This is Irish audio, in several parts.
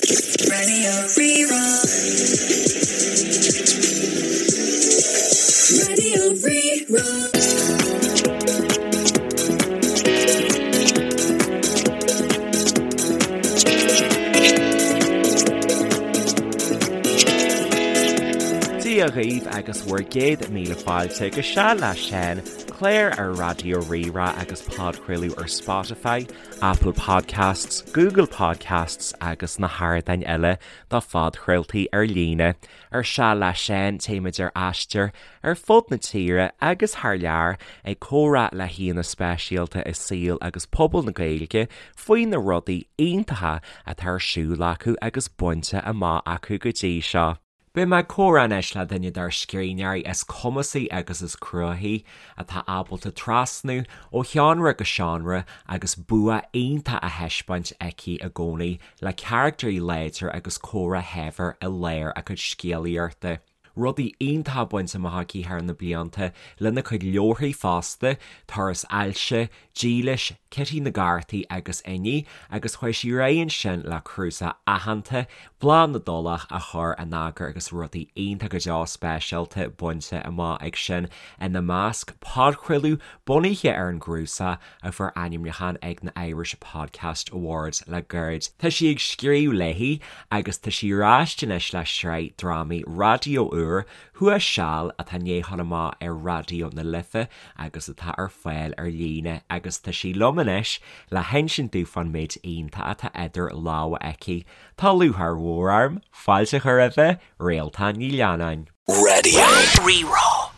Radio Rí-Rá. Radio Rí-Rá. Dia dhaoibh agus bhur gcéad míle fáilte go Seal le Seán, clár ar Raidió Rí-Rá agus podchraoladh ar Spotify, Apple Podcasts, Google Podcasts agus na hardáin eile do phodchraoltaí ar líne. Ar Seal le Seán, téimid ar aistear ar fud na tíre agus thar lear ag comhrá le haíonna speisialta i saol agus pobal na Gaeilge faoi na rudaí iontacha atá ar siúl acu agus bainte amach acu go dtí seo. Beidh mé ag comhrá anois le duine dár scríbhneoirí is cumasaí agus is cruthaithí, atá ábalta trasnú ó sheánra go seánra agus bua iontach á thaispeáint aici i gcónaí le carachtair láidre agus comhrá shaibhir i lár a cuid scéalaíochta. Rudaí iontacha bainte amach aici thar na blianta lena cuid leabharthaí fosta, Turas Ailse, Dílis, Cití na gCártaí agus Inní, agus chuaigh sí ar aghaidh ansin le cnuasach aitheanta, Bláth na dTulach, a chur in eagar agus rudaí iontach go deo speisialta bainte amach ag sin, ina measc, podchraoladh bunaithe ar an gcnuasach a fuair ainmniúchán ag na Irish Podcast Awards le gairid. Tá sí ag scríobh léi agus tá sí ar ais anois le sraith drámaí raidió úr, Thuas Seal, atá i ndiaidh a ghabháil amach ar Raidió na Life agus atá ar fáil ar líne agus tá sí liom anois le hinsint domh fán méid iontach atá idir lámha aici. Tá lúcháir mhór orm fáilte a chur roimhe, Réaltán Ní Leannáin. Radio Rí-Rá.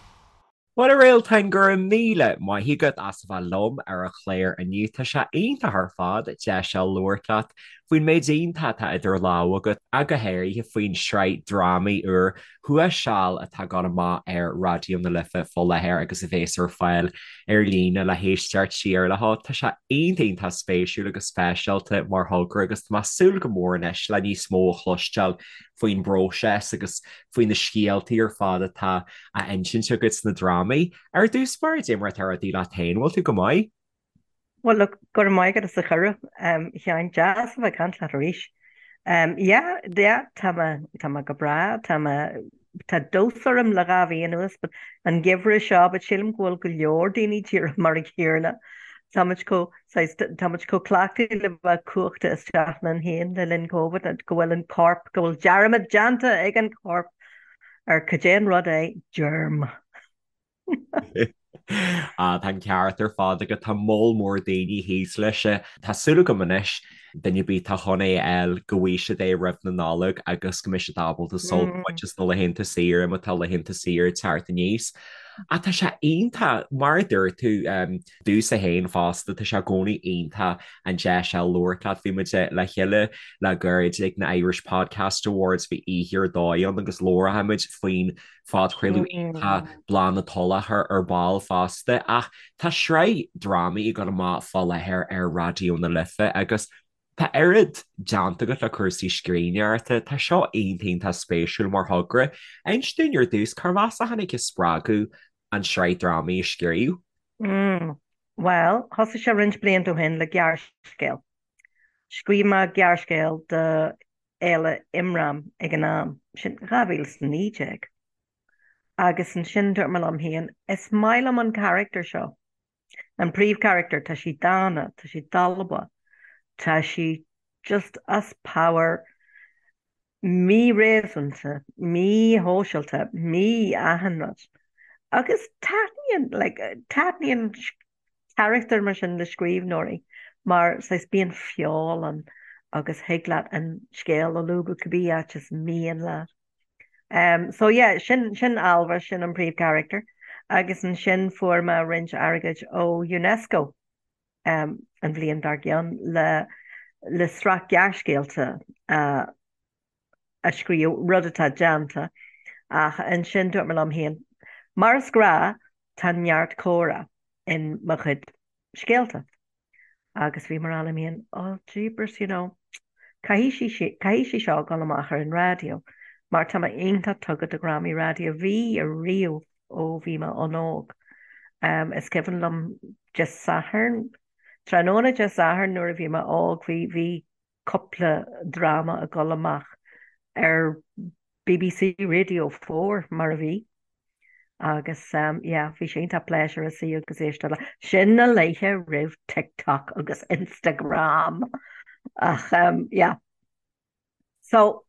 Bhuel a Réaltáin, go raibh míle maith agat as a bheith liom ar an chlár inniu. Tá sé iontach ar fad deis a fháil labhairt leat faoin méid iontach atá idir lámha agat, ach go háirithe faoin sraith drámaí úr Thuas Seal atá ag dul amach ar Raidió na Life fá láthair agus a bhéas ar fáil ar líne le héisteacht siar leo. Tá sé iontach iontach spéisiúil agus speisialta mar thogra agus tá mé ag súil go mór anois le níos mó a chloisteáil faoin bpróiseas agus faoi na scéaltaí ar fad atá á insint agat sna drámaí. Ar dtús báire, cad é mar atá rudaí leat féin, bhfuil tú go maith? Bhuel, look, go raibh maith agat as an chuireadh, a Sheáin. Deas a bheith ag caint leat arís. Yeah, yeah, tá mé, tá mé go breá, tá mé, tá dós orm le 2 mhí anuas, but an geimhreadh seo, but sílim go bhfuil go leor daoine díreach mar an gcéanna. Tá muid chomh, saghas, tá muid chomh cleachtaithe le bheith cuachta isteach linn féin le linn Covid go bhfuil an corp, go bhfuil dearmad déanta ag an chorp ar cad é an rud é germ. Ah, tá an ceart ar fad agat, tá moll mór daoine thíos leis. Tá súil agam anois, duine ar bith atá chun é a fháil, go bhfaighidh siad é roimh na Nollag agus go mbeidh siad ábalta sult a bhaint as na laethanta saoire má tá laethanta saoire ag teacht aníos. Ach tá sé iontach, mar a dúirt tú, domhsa féin fosta, tá sé i gcónaí iontach an deis a labhairt leat. Bhí muid le chéile le gairid ag na Irish Podcast Awards, bhí oíche ar dóigh ann agus labharfaidh muid faoin phodchraoladh iontach Bláth na Tulach ar ball fosta ach tá sraith drámaí ag dul amach fá láthair ar Raidió na Life agus tá oiread déanta agat le cúrsaí scríbhneoireachta, tá seo iontach iontach spéisiúil mar thogra. Inis dúinn ar dtús, cárb as a tháinig an spreagadh an tsraith drámaí a scríobh? Mm, bhuel, thosaigh sé roinnt blianta ó shin le gearrscéal. Scríobh mé gearrscéal do Fhéile Imram ag an am, sin 2019. Agus ansin dúirt mé liom féin, is maith liom an carachtar seo, an príomhcharachtar, tá sí dána, tá sí dalba, tá sí just as pabhar, mí-réasúnta, mí-shóisialta, mí-achan rud. Agus taitníonn, like, taitníonn carachtair mar sin le scríbhneoirí mar saghas bíonn feol ann agus thig leat an scéal a lúbadh cibé áit is mian leat. Um, so yeah, sin, sin Ailbhe, sin an príomhcharachtar agus ansin fuair mé roinnt airgid ó UNESCO um, an bhliain dár gcionn le, le sraith gearrscéalta uh, a scríobh, rud atá déanta, ach ansin dúirt mé liom féin, mar is gnáth, tá neart comhrá in mo chuid scéalta. Agus bhí mé ag rá liom féin, oh jeepers, you know, caithfidh sí, caithfidh sí seo dul amach ar an raidió, mar tá mé iontach tugtha do dhrámaí raidió, bhí ariamh ó bhí mé an-óg. Um, is cuimhin liom Dé Sathairn, tráthnóna Dé Sathairn nuair a bhí mé óg, bhí, bhí. Cúpla dráma ag dul amach ar BBC Radio 4 mar a bhí agus yeah bhí sé iontach pléisiúrtha suí agus éisteacht le sin na laethe roimh TikTok agus Instagram ach yeah. So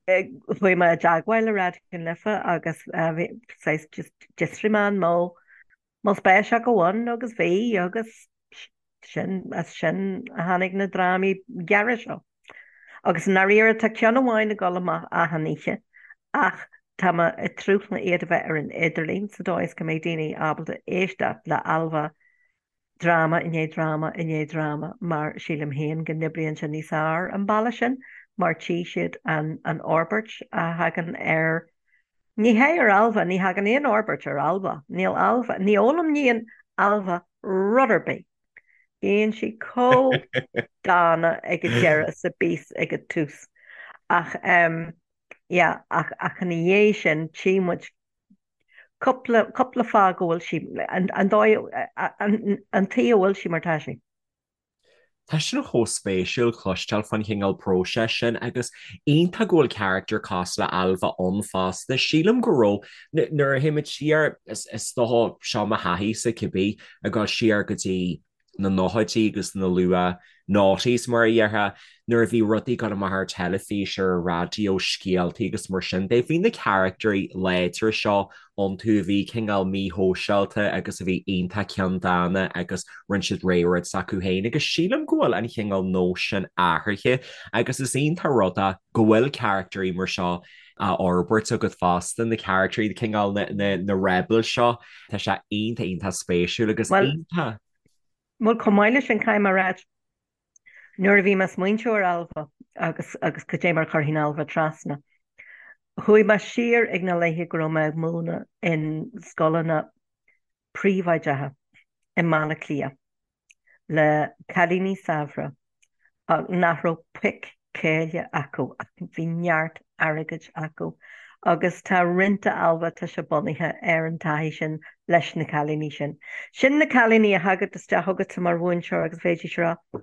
chuaigh mé i dteagmháil le Raidió na Life agus bhí saghas just d'fhiosraigh mé an mbeadh mbeadh spéis acu ann agus bhí agus sin as sin a tháinig na drámaí gearra seo. Agus i ndáiríre tá ceann amháin ag dul amach achan oíche ach tá mé ag tnúth le iad a bheith ar an idirlíon sa dóigh is go mbeidh daoine ábalta éisteacht le Ailbhe dráma i ndiaidh dráma i ndiaidh dráma mar sílim féin go n-oibríonn sé níos fearr an bealach sin mar tchí siad an an fhorbairt a thagann ar ní hé ar Ailbhe, ní thagann aon fhorbairt ar Ailbhe, níl Ailbhe, ní fhoghlaimníonn Ailbhe rud ar bith. Bíonn sí chomh dána ag an deireadh is a bhíos ag an tús. Ach em yeah ach ach ina dhiaidh sin tchí muid Cúpla, cúpla fáth go bhfuil sí, an dóigh, an tuige a bhfuil sí mar tá sí. Tá sin chomh spéisiúil cloisteáil faoin chineál próiseas sin agus iontach go bhfuil carachtar cosúil le Ailbhe ann fosta. Sílim go raibh, nuair a théimid siar, is dócha, seo mo thaithí-sa cibé, ag dul siar go dtí na nóchaidí agus na luath noughties mar a dhéarfá, nuair a bhí rudaí ag dul amach ar teilifís, ar an raidió, scéaltaí agus mar sin de. Bhí na caractairí láidre seo iontu a bhí cineál míshóisialta agus a bhí iontach ceanndána agus rinne siad rogha rud s'acu féin agus sílim go bhfuil an chineál nós sin athraithe agus is iontach rud é go bhfuil caractairí mar seo á fhorbairt agat fosta, na caractairí, cineál na rebels seo, tá sé iontach iontach spéisiúil agus iontach. Bhuel, chomh maith leis sin, caithfidh mé a ráit, nuair a bhí mé ag smaointiú ar Ailbhe agus agus cad é mar a chuirfinn Ailbhe trasna, chuaigh mé siar ag na laethe go raibh mé ag múineadh in scoileanna príobháideacha i mBaile Átha Cliath. le cailíní saibhre nach raibh pic céille acu ach bhí neart airgid acu agus tá roinnt de Ailbhe, tá sé bunaithe ar an taithí sin leis na cailíní sin. Sin na cailíní a thagadh isteach chugatsa mar mhúinteoir agus bheidís ag rá,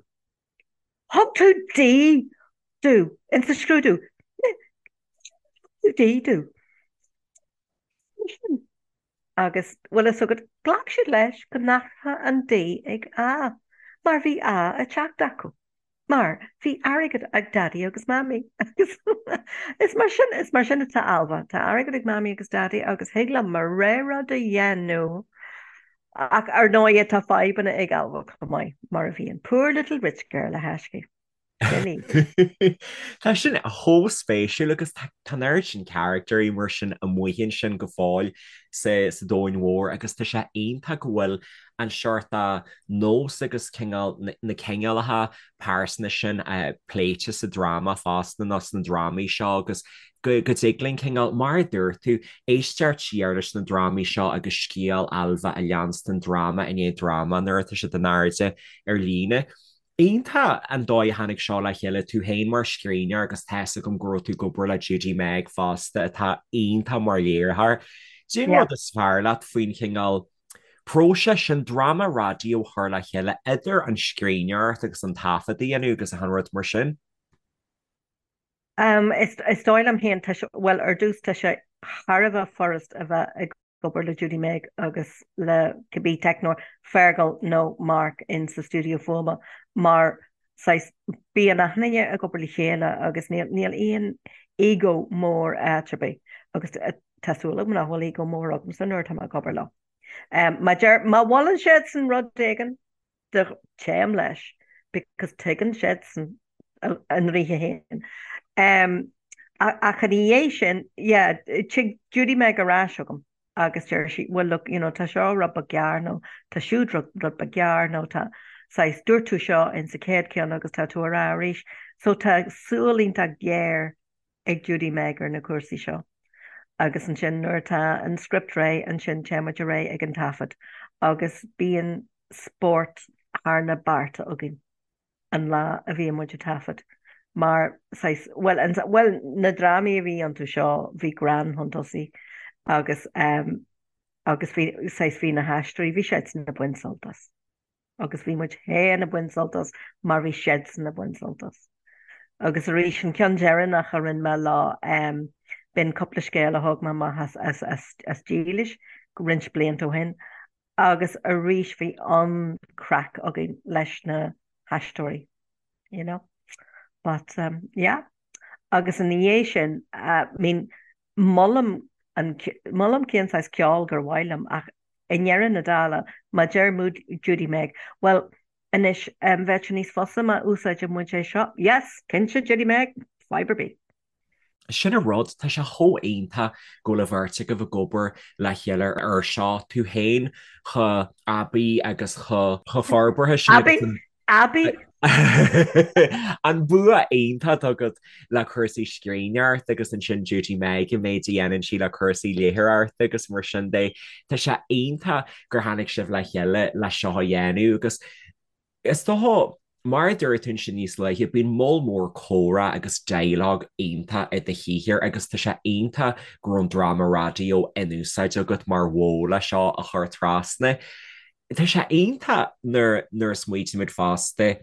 Thug tú D domh insa scrúdú! Thug tú D domh! Agus, bhfuil fhios agat, ghlac siad leis go n-athródh an D ag A, mar bhí A ag teacht acu. Mar bhí airgead ag Daidí agus Mamaí. Agus is mar sin, is mar sin atá Ailbhe. Tá airgead ag Mamaí agus Daidí agus thig liom mo rogha rud a dhéanamh. Ach ar ndóigh tá fadhbanna ag Ailbhe chomh maith, mar a bhíonn. Poor little rich girl, a thaiscidh. Tá sin chomh spéisiúil agus tá an oiread sin caractairí mar sin amuigh ansin go fóill sa domhan mhór agus tá sé iontach go bhfuil an seort nós agus cineál na cineálacha pearsana sin pléite sa dráma fosta nó sna drámaí seo agus go dtig linn cineál, mar a dúirt tú, éisteacht siar leis na drámaí seo agus scéal Ailbhe a leanstan dráma i ndiaidh dráma nuair atá siad in airde ar líne. Iontach an dóigh a tháinig seo le chéile, tú féin mar scríbhneoir agus tá's agam go raibh tú ag obair le Judy Meg fosta atá iontach mar léiritheoir. Cén Yeah. rud is fearr leat faoin chineál próiseas sin dráma raidió a chur le chéile idir an scríbhneoireacht agus an taifead a dhéanamh agus achan rud mar sin? Um, is, is dóigh liom féin, tá sé, bhuel, ar dtús tá sé thar a bheith furast a bheith ag obair le Judy Meg agus le cibé teicneoir, Fergal nó Mark in sa stiúideo fuaime mar saghas bíonn achan duine ag obair le chéile agus níl níl aon ego mór áit ar bith agus tá súil agam nach bhfuil ego mór agamsa nuair atá mé ag obair leo. Má deir má mholann siadsan rud éigin de téim leis because tuigeann siadsan a ndlíthe féin. Ach ina dhiaidh sin, yeah, tig Judy Meg ar ais chugam agus deir sí, well look, you know, tá seo rud beag gearr nó tá siúd rud beag gearr nó tá saghas, dúirt tú seo in sa chéad ceann agus tá tú á rá arís. So tá súil iontach géar ag Judy Meg ar na cúrsaí seo. Agus ansin nuair atá an script réidh, ansin téimid ar aghaidh ag an taifead agus bíonn spórt thar na bearta againn an lá a bhíonn muid ag taifead mar saghas, bhuel, an, bhuel, na drámaí a bhí iontu seo, bhí greann chun tosaigh agus ehm, agus bhí, saghas, bhí na haisteoirí, bhí siadsan ag baint sult as. Agus bhí muid féin ag baint sult as mar bhí siadsan ag baint sult as. Agus arís, an ceann deireanach a rinne mé leo, b'in cúpla scéal a thóg mé amach as Dílis roinnt blianta ó shin agus arís bhí an-craic againn leis na haisteoirí, you know. But yeah. Agus ina dhiaidh sin, I mean, molaim an, molaim cén saghas ceoil gur mhaith liom ach i ndeireadh na dála, má deir Judy Meg, bhuel, Anois, bheadh sé níos fusa má úsáideann muid é seo. Yes! Cinnte, Judy Meg! Fadhb ar bith. Sin an rud, tá sé chomh iontach go bhfuil an bheirt agaibh ag obair le chéile ar seo, tú féin chomh aibí agus chomh forbartha sin agus an. Aibí? An bua iontach atá agat le cúrsaí scríbhneoireachta agus ansin Judy Meg an méid a dhéanann sí le cúrsaí léitheoireachta agus mar sin de. Tá sé iontach gur tháinig sibh le chéile le seo a dhéanamh agus is dócha, mar a dúirt tú ansin níos luaithe, bíonn moll mór comhrá agus dialogue iontach i do shaothar agus tá sé iontach go raibh an dráma raidió in úsáid agat mar mhodh le seo a chur trasna. Tá sé iontach nuair nuair a smaoitímid fosta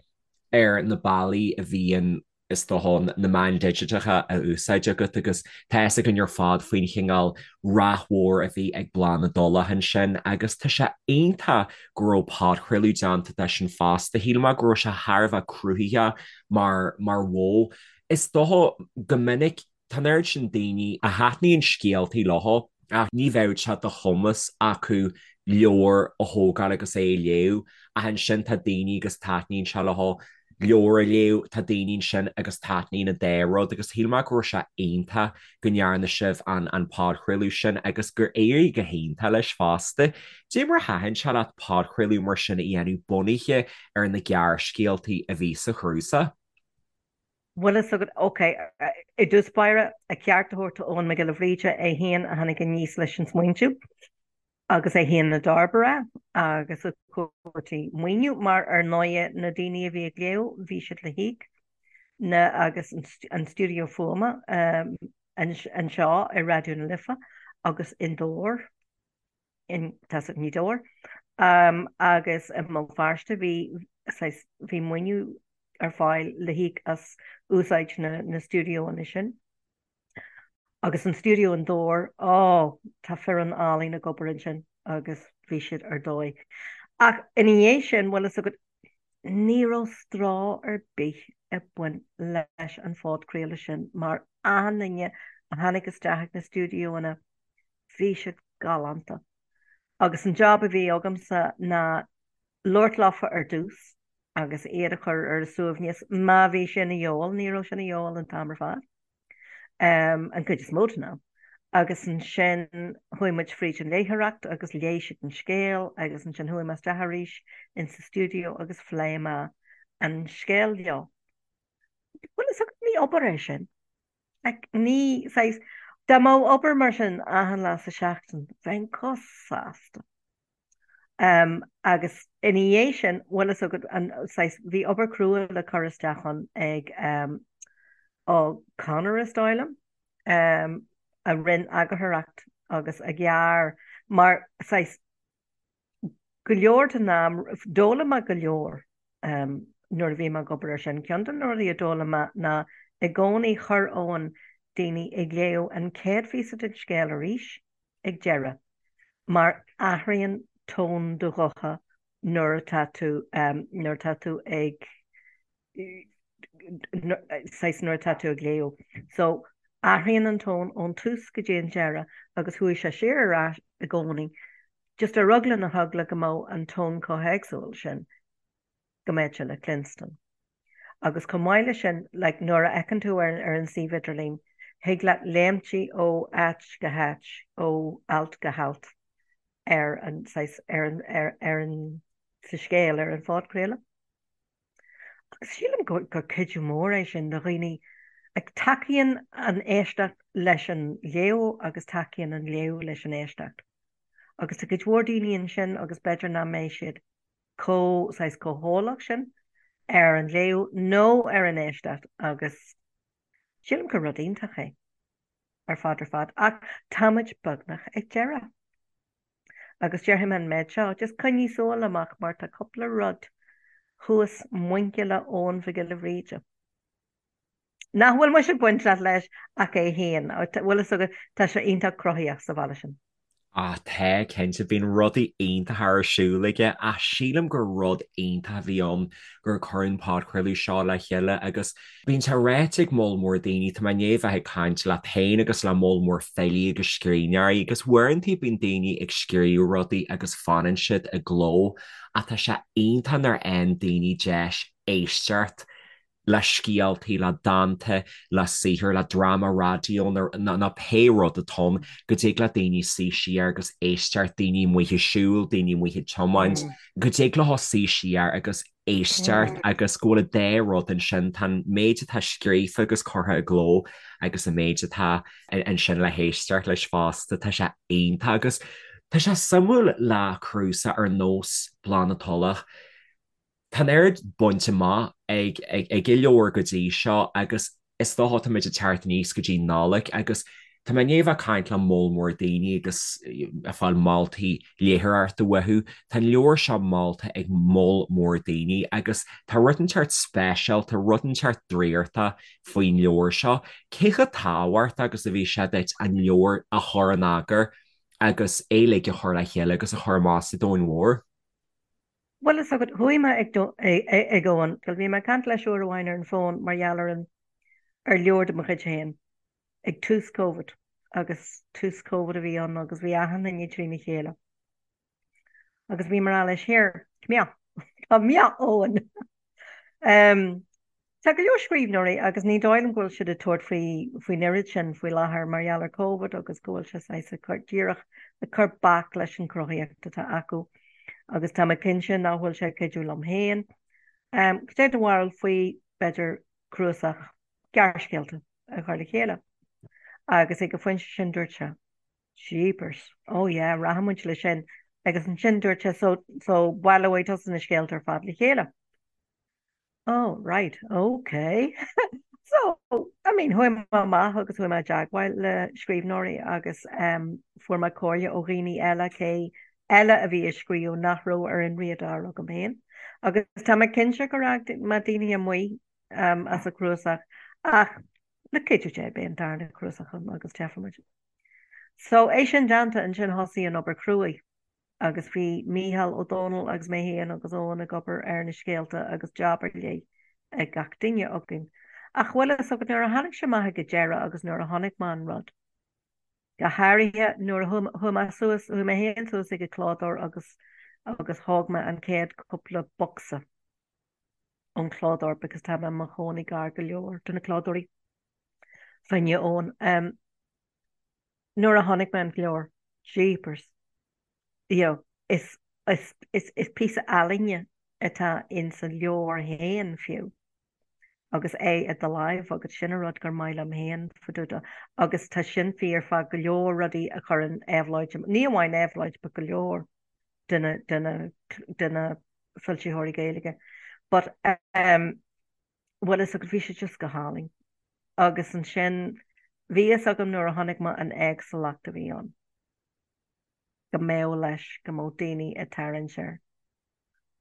ar na bealaí a bhíonn is dócha, na meáin digiteacha a úsáid agat agus tá fhios againn ar fad faoin chineál rath mhór a bhí ag Bláth na dTulach ansin agus tá sé iontach go raibh podchraoladh déanta de sin fosta. Shíl mé go raibh sé thar a bheith cruthaitheach mar mar mhodh. Is dócha go minic Tá an oiread sin daoine a thaitníonn scéaltaí leo ach ní bheadh sé de chumas acu leabhar a thógáil agus é a léamh ach ansin tá daoine agus taitníonn sé leo leabhar a léamh, tá daoine ansin agus taitníonn an dá rud agus shíl mé go raibh sé iontach go ndearna sibh an an podchraoladh sin agus gur éirigh go hiontach leis fosta. Cad é mar a thaitin sé leat podchraoladh mar sin a dhéanamh bunaithe ar na gearrscéaltaí a bhí sa chnuasach? Bhfuil fhios agat, ok, i dtús báire, a ceart a thabhairt do Eoghan Mac Giolla Bhríde, é féin a tháinig aníos leis an smaointiú agus é féin a d'fhorbair é agus a chuartaigh maoiniú mar ar ndóighe na daoine a bhí ag léamh bhí siad le híoc na agus an stiúideo fuaime anseo i Raidió na Life agus i nDobhar. in tá i nGaoth Dobhair agus i mBéal Feirste bhí saghas bhí maoiniú ar fáil le híoc as úsáid na na stiúideoanna sin. Agus an stiúideo in Dobhar, ó, tá foireann álainn ag obair ansin agus bhí siad ar dóigh. Ach ina dhiaidh sin, bhfuil fhios agat, ní raibh stró ar bith ag baint leis an phodchraoladh sin mar achan duine a tháinig isteach ag na stiúideoanna, Bhí siad galánta. Agus an job a bhí agamsa ná labhairt leofa ar dtús agus iad a chur ar a suaimhneas má bhí sé ina dhíobháil, ní raibh sé ina dhíobháil an t-am ar fad, an chuid is mó den am. Agus ansin chuaigh muid fríd an léitheoireacht agus léigh siad an scéal agus ansin chuaigh mé isteach arís in sa stiúideo agus phléigh mé an scéal leo. Bhuel, is ní obair é sin. Like, ní, saghas, dá mbeadh obair mar sin achan lá sa seachtain, bheinn chomh sásta. Um, agus ina dhiaidh sin, bhfuil fhios agat, an, saghas, bhí obair crua le cur isteach ann ag, um, ó Conor is dóigh liom, um, a rinne eagarthóireacht agus a ghearr, mar, saghas, go leor den am, d'fhoghlaim mé go leor nuair a bhí mé ag obair ar sin. Ceann de na rudaí a d'fhoghlaim mé ná i gcónaí chuir Eoghan daoine ag léamh an chéad phíosa den scéal arís ag deireadh mar athraíonn tón do ghutha nuair atá tú nuair atá tú ag saghas nuair atá tú ag léamh. So, athraíonn an tón ón tús go dtí an deireadh agus chuaigh sé siar ar ais i gcónaí, just ar eagla na heagla go mbeadh an tón chomh héagsúil sin go mbeadh sé le cluinstin. Agus chomh maith leis sin, like, nuair a fheiceann tú ar, ar an suíomh idirlín, thig leat léimtí ó áit go háit, ó alt go halt ar an, saghas, ar an, ar, ar an, sa scéal, ar an phodchraoladh. Agus sílim gur cuidiú mór é sin do dhaoine. Tacaíonn an éisteacht leis an léamh agus tacaíonn an léamh leis an éisteacht. Agus tá cuid mhór daoine ansin agus b'fhéidir nach mbeidh siad chomh, saghas, chomh heolach sin ar an léamh nó ar an éisteacht agus sílim gur rud iontach é ar fad ar fad. Ach táimid beagnach ag deireadh. Agus déarfaidh mé an méid seo, just coinnigh súil amach mar tá cúpla rud thuas muinchille Eoghan Mhic Giolla Bhríde. Nach bhfuil mise bainteach leis ach é féin. Bhfuil fhios agat, tá sé iontach cruthaíoch sa bhaile sin. Ah tá, cinnte, bíonn rudaí iontacha ar siúl aige ach sílim gur rud iontach a bhí ann gur cuireadh an podchraoladh seo le chéile agus bíonn sé ráite ag moll mór daoine, tá mé i ndiaidh bheith ag caint leat féin agus le moll mór filí agus scríbhneoirí agus uaireanta bíonn daoine ag scríobh rudaí agus fanann siad i gcló ach tá sé iontach nuair a fhaigheann daoine deis éisteacht le scéaltaí, le dánta, le saothar, le dráma raidió nó pé rud atá ann, go dtig le daoine suí siar agus éisteacht, daoine amuigh ag siúl, daoine amuigh ag tiomáint, go dtig leo suí siar agus éisteacht agus go bhfuil an dá rud ansin, tá an méid atá scríofa agus curtha i gcló agus an méid atá ansin le héisteacht leis fosta, tá sé iontach agus tá sé suimiúil le cnuasach ar nós Bláth na Tulach. Tá an oiread bainte amach ag an leabhar go dtí seo agus is dócha táimid ag teacht aníos go dtí Nollaig agus tá mé i ndiaidh a bheith ag caint le moll mór daoine agus ag fáil moltaí léitheoireachta uathu. Tá an leabhar seo molta ag moll mór daoine agus tá rud inteacht speisialta, rud inteacht draíochta faoin leabhar seo. Cé chomh tábhachtach agus a bhí sé duit an leabhar a chur in eagar agus é uilig a chur le chéile agus a chur amach sa domhan mhór? Bhuel fhios agat, chuaigh mé ag ag Eoin, bhí mé ag caint leis uair amháin ar an bhfón mar gheall ar an ar leabhar de mo chuid féin ag tús Covid agus tús Covid a bhí ann agus bhí achan duine trína chéile. Agus bhí mé ag rá leis, here, come here, come here Eoin. Um, Tá go leor scríbhneoirí agus ní dóigh liom go bhfuil siad ag tabhairt faoi faoin oiread sin faoi láthair mar gheall ar Covid agus go bhfuil sé saghas ag cur díreach ag cur bac leis an chruthaíocht atá acu agus tá mé cinnte nach bhfuil sé ag cuidiú liom féin. Cad é do bharúil faoi b'fhéidir cnuasach gearrscéalta a chur le chéile? Agus ag an phointe sin dúirt sé, Jeepers, oh yeah, rachaidh muid leis sin agus ansin dúirt sé so so baileoidh tusa na scéalta ar fad le chéile. Oh, right, ok. So, I mean, chuaigh mé amach agus chuaigh mé i dteagmháil le scríbhneoirí agus um, fuair mé comhairle ó dhaoine eile cé eile a bhí ag scríobh nach raibh ar an radar agam féin. Agus tá mé cinnte gur fhág mé daoine amuigh um, as an chnuasach ach le cuidiú Dé beidh an darna cnuasach ann agus teifimid. So, é sin déanta ansin thosaigh an obair cruaidh. agus bhí Mícheál Ó Domhnaill agus mé féin agus Eoin ag obair ar na scéalta agus jab ar leith ag gach duine againn. Ach bhfuil fhios agat nuair a tháinig sé amach ag an deireadh agus nuair a chonaic mé an rud, go háirithe nuair a chuaigh mé suas, chuaigh mé féin suas ag an clódóir agus agus thóg mé an chéad cúpla bocsa ón clódóir because tá mé i mo chónaí gar go leor do na clódóirí fá choinne Eoin. Um, Nuair a chonaic mé an leabhar, jeepers, you know, is, is, is, is píosa ealaíne atá in sa leabhar féin fiú agus é i do láimh agat, sin an rud gur maith liom féin fá dtaobh de agus tá sin fíor fá go leor rudaí a chuireann Éabhlóid, ní amháin Éabhlóid but go leor de na, de na, de na foilsitheoirí Gaeilge. But um, bhfuil fhios agat, bhí sé just go hálainn. Agus ansin, bhí fhios agam nuair a chonaic mé an éagsúlacht a bhí ann, go mbeadh leis, go mbeadh daoine ag tarraingt air.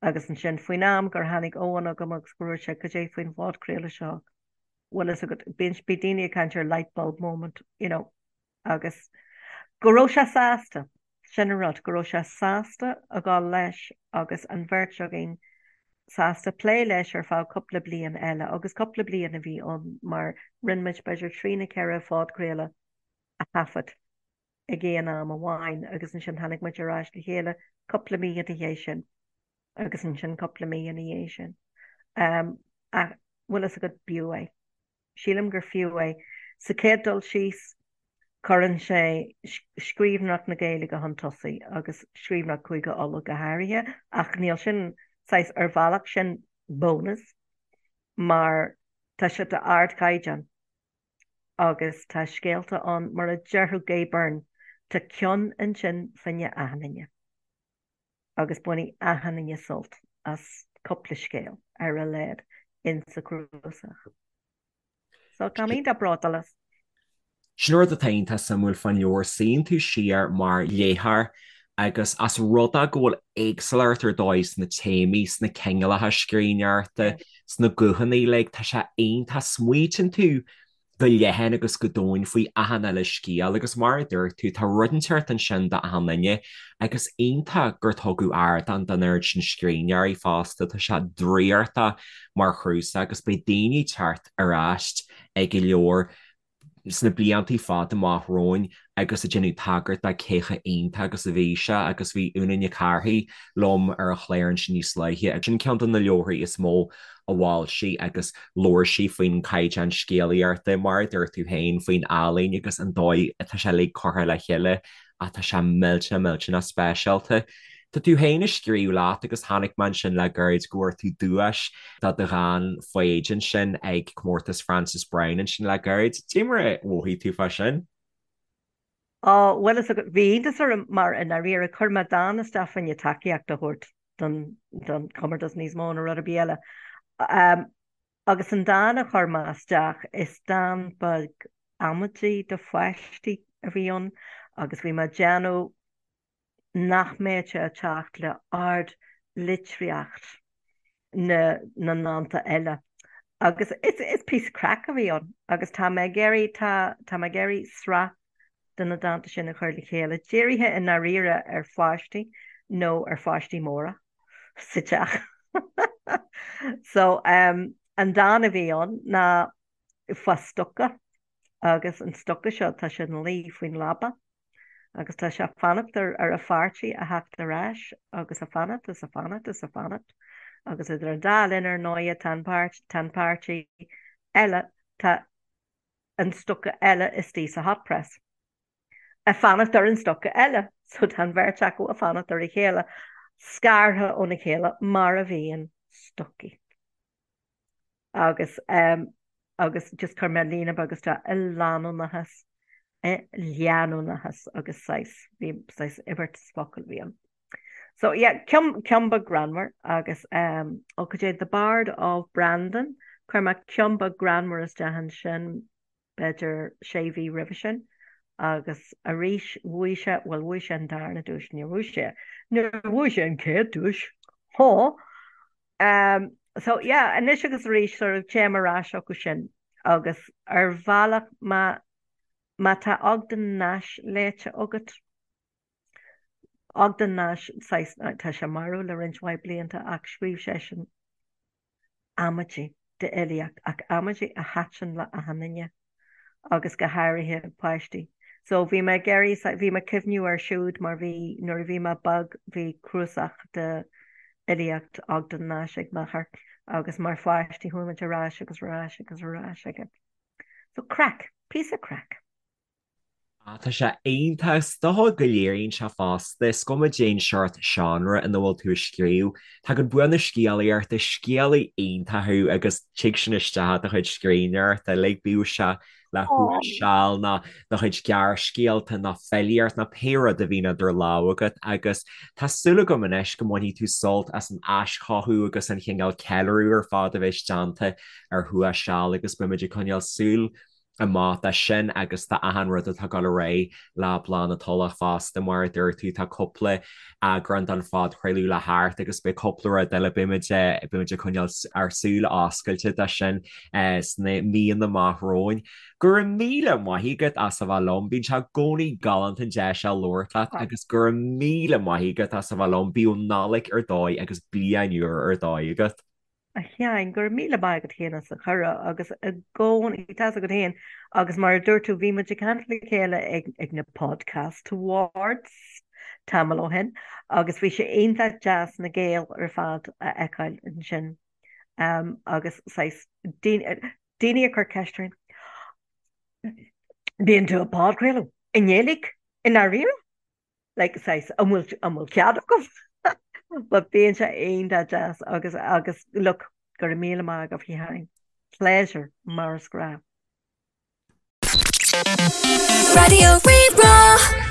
Agus ansin, faoin am gur tháinig Eoin chugam agus go dúirt sé, cad é faoin phodchraoladh seo, bhfuil fhios agat, bíonn, bhí daoine ag caint ar light bulb moment, you know, agus go raibh sé sásta, sin an rud, go raibh sé sásta a dhul leis agus an bheirt againn sásta plé leis ar feadh cúpla bliain eile agus cúpla bliain a bhí ann mar rinne muid b'fhéidir trí nó ceithre phodchraoladh a thaifead ag aon am amháin agus ansin tháinig muid ar ais le chéile cúpla mí ina dhiaidh sin agus ansin cúpla mí ina dhiaidh sin. Um, ach bhfuil fhios agat b'fhiú é. Sílim gur fiú é. Sa chéad dul síos, cuireann sé scríbhneoireacht na Gaeilge chun tosaigh, agus scríbhneoireacht Chúige Uladh go háirithe, ach níl sin, saghas, ar bhealach, sin bónas, mar tá sé d'ardchaighdeán agus tá scéalta ann, mar a déarfadh Gay Byrne, tá ceann ansin fá choinne achan duine. agus bainfidh achan duine sult as cúpla scéal ar a laghad insa chnuasach. So tá mé iontach bródúil as. Sin rud atá iontach suimiúil fán leabhar, suíonn tú siar mar léitheoir. Agus as rud é go bhfuil éagsúlacht ar dóigh sna téamaí, sna cineálacha scríbhneoireachta, sna guthanna uilig, tá sé iontach. Smaoitíonn tú go leathan agus go domhain faoi achan uile scéal agus mar a dúirt tú, tá rud inteacht ansin do achan duine agus iontach gur tugadh ardán don oiread sin scríbhneoirí fosta, tá sé draíochtach mar chúrsa agus beidh daoine ag teacht ar ais ag an leabhar sna blianta fada amach romhainn agus ag déanamh tagairt do cé chomh iontach agus a bhí sé agus bhí Úna Nic Cárthaigh liom ar an chlár ansin níos luaithe agus sin ceann de na leabharthaí is mó a mhol sí agus labhair sí faoin gcaighdeán scéalaíochta, mar a dúirt tú féin, faoin ealaín agus an dóigh atá sé uilig curtha le chéile ach tá sé millteanach millteanach speisialta. Tá tú féin ag scríobh leat agus chonaic mé ansin le gairid go bhfuair tú duais do do dhán Foighid ansin ag Comórtas Frances Browne ansin le gairid. Cad é mar a mhothaigh tú fá sin? Á, bhuel is bhí iontas orm mar i ndáiríre chuir mé dán isteach fá choinne tacaíocht a thabhairt don don chomórtas níos mó ná rud ar bith eile. Agus an dán a chuir mé isteach, is dán beag amaidí do pháistí a bhí ann agus bhí mé ag déanamh nach mbeadh sé ag teacht le ard-litríocht na na ndánta eile. Agus is is píosa craic a bhí ann agus tá mé ag iarraidh, tá tá mé ag iarraidh sraith de na dánta sin a chur le chéile, dírithe i ndáiríre ar pháistí nó ar pháistí móra sa teach. So um, an dán a bhí ann ná fá stoca agus an stoca seo tá sé ina luí faoin leaba agus tá sé ag fanacht ar ar a pháirtí a theacht ar ais agus ag fanacht is ag fanacht is ag fanacht agus idir an dá linn ar ndóighe tá an páirt tá an páirtí eile tá an stoca eile istigh sa hot press. Ag fanacht ar an stoca eile, so tá an bheirt acu ag fanacht ar a chéile, scartha óna chéile mar a bhíonn stocaí. Agus um, agus just chuir mé líne beag isteach i leanúnachas, i leanúnachas agus saghas, bhí saghas imirt focal a bhí ann. So yeah, ceann, ceann beag greannmhar agus um, ó cad é The Bard of Brandon, chuir mé ceann beag greannmhar isteach ansin b'fhéidir sé mhí roimhe sin agus arís bhuaigh sé, bhuel bhuaigh sé an darna duais, níor bhuaigh sé, níor bhuaigh sé an chéad duais, há! Um, so yeah, anois agus arís sort of téim ar ais chucu sin agus ar bhealach má, má tá Ogden Nash léite agat, Ogden Nash, saghas, tá sé marbh le roinnt mhaith blianta ach scríobh seisean amaidí d'fhilíocht ach amaidí a thaitin le achan duine agus go háirithe páistí. So bhí mé ag iarraidh, bhí mé ag cuimhniú air siúd mar bhí, nuair a bhí mé beag bhí cnuasach de fhilíocht Ogden Nash ag m'athair agus mar pháistí chuaigh muid ar ais agus ar ais agus ar ais aige. So craic, píosa craic. Ah, tá sé iontach. Is dócha go léiríonn sé fosta, is cuma cén seort seánra ina bhfuil tú ag scríobh. Tagann bua na scéalaíochta, scéalaí iontach thú agus tig sin isteach i do chuid scríbhneoireachta uilig, bíodh sé le Thuas Seal nó do chuid gearrscéalta nó filíocht nó pé rud a bhíonn idir lámha agat agus tá súil agam anois go mbainfidh tú sult as an aischothú agus an chineál ceiliúradh ar fad a bheas déanta ar Thuas Seal agus beimid ag coinneáil súil amach do sin agus do achan rud atá ag dul ar aghaidh le Bláth na Tulach fosta. Mar a dúirt tú, tá cúpla eagrán den phodchraoladh le theacht agus beidh cúpla rud eile, beimid beimid ag coinneáil ár súile oscailte do sin sna míonna amach romhainn. Go raibh míle maith agat as a bheith liom, bíonn sé i gcónaí galánta an deis seo labhairt leat agus go raibh míle maith agat as a bheith liom, bíodh Nollaig ar dóigh agus bliain úr ar dóigh agat. A Sheáin, go raibh míle maith agat féin as an chuireadh agus i gcónaí, tá's agat féin, agus mar a dúirt tú, bhí muid ag caint le chéile ag ag na Podcast Awards tamall ó shin agus bhí sé iontach deas na Gaeil ar fad a fheiceáil ansin agus saghas daoine daoine ag cur ceist orainn, bíonn tú ag podchraoladh i nGaeilge i ndáiríre? like saghas an bhfuil an bhfuil cead agaibh? But bíonn sé iontach deas agus agus look go raibh míle maith agaibh a Sheáin. Pleasure mar is gnách. Raidió Rí-Rá.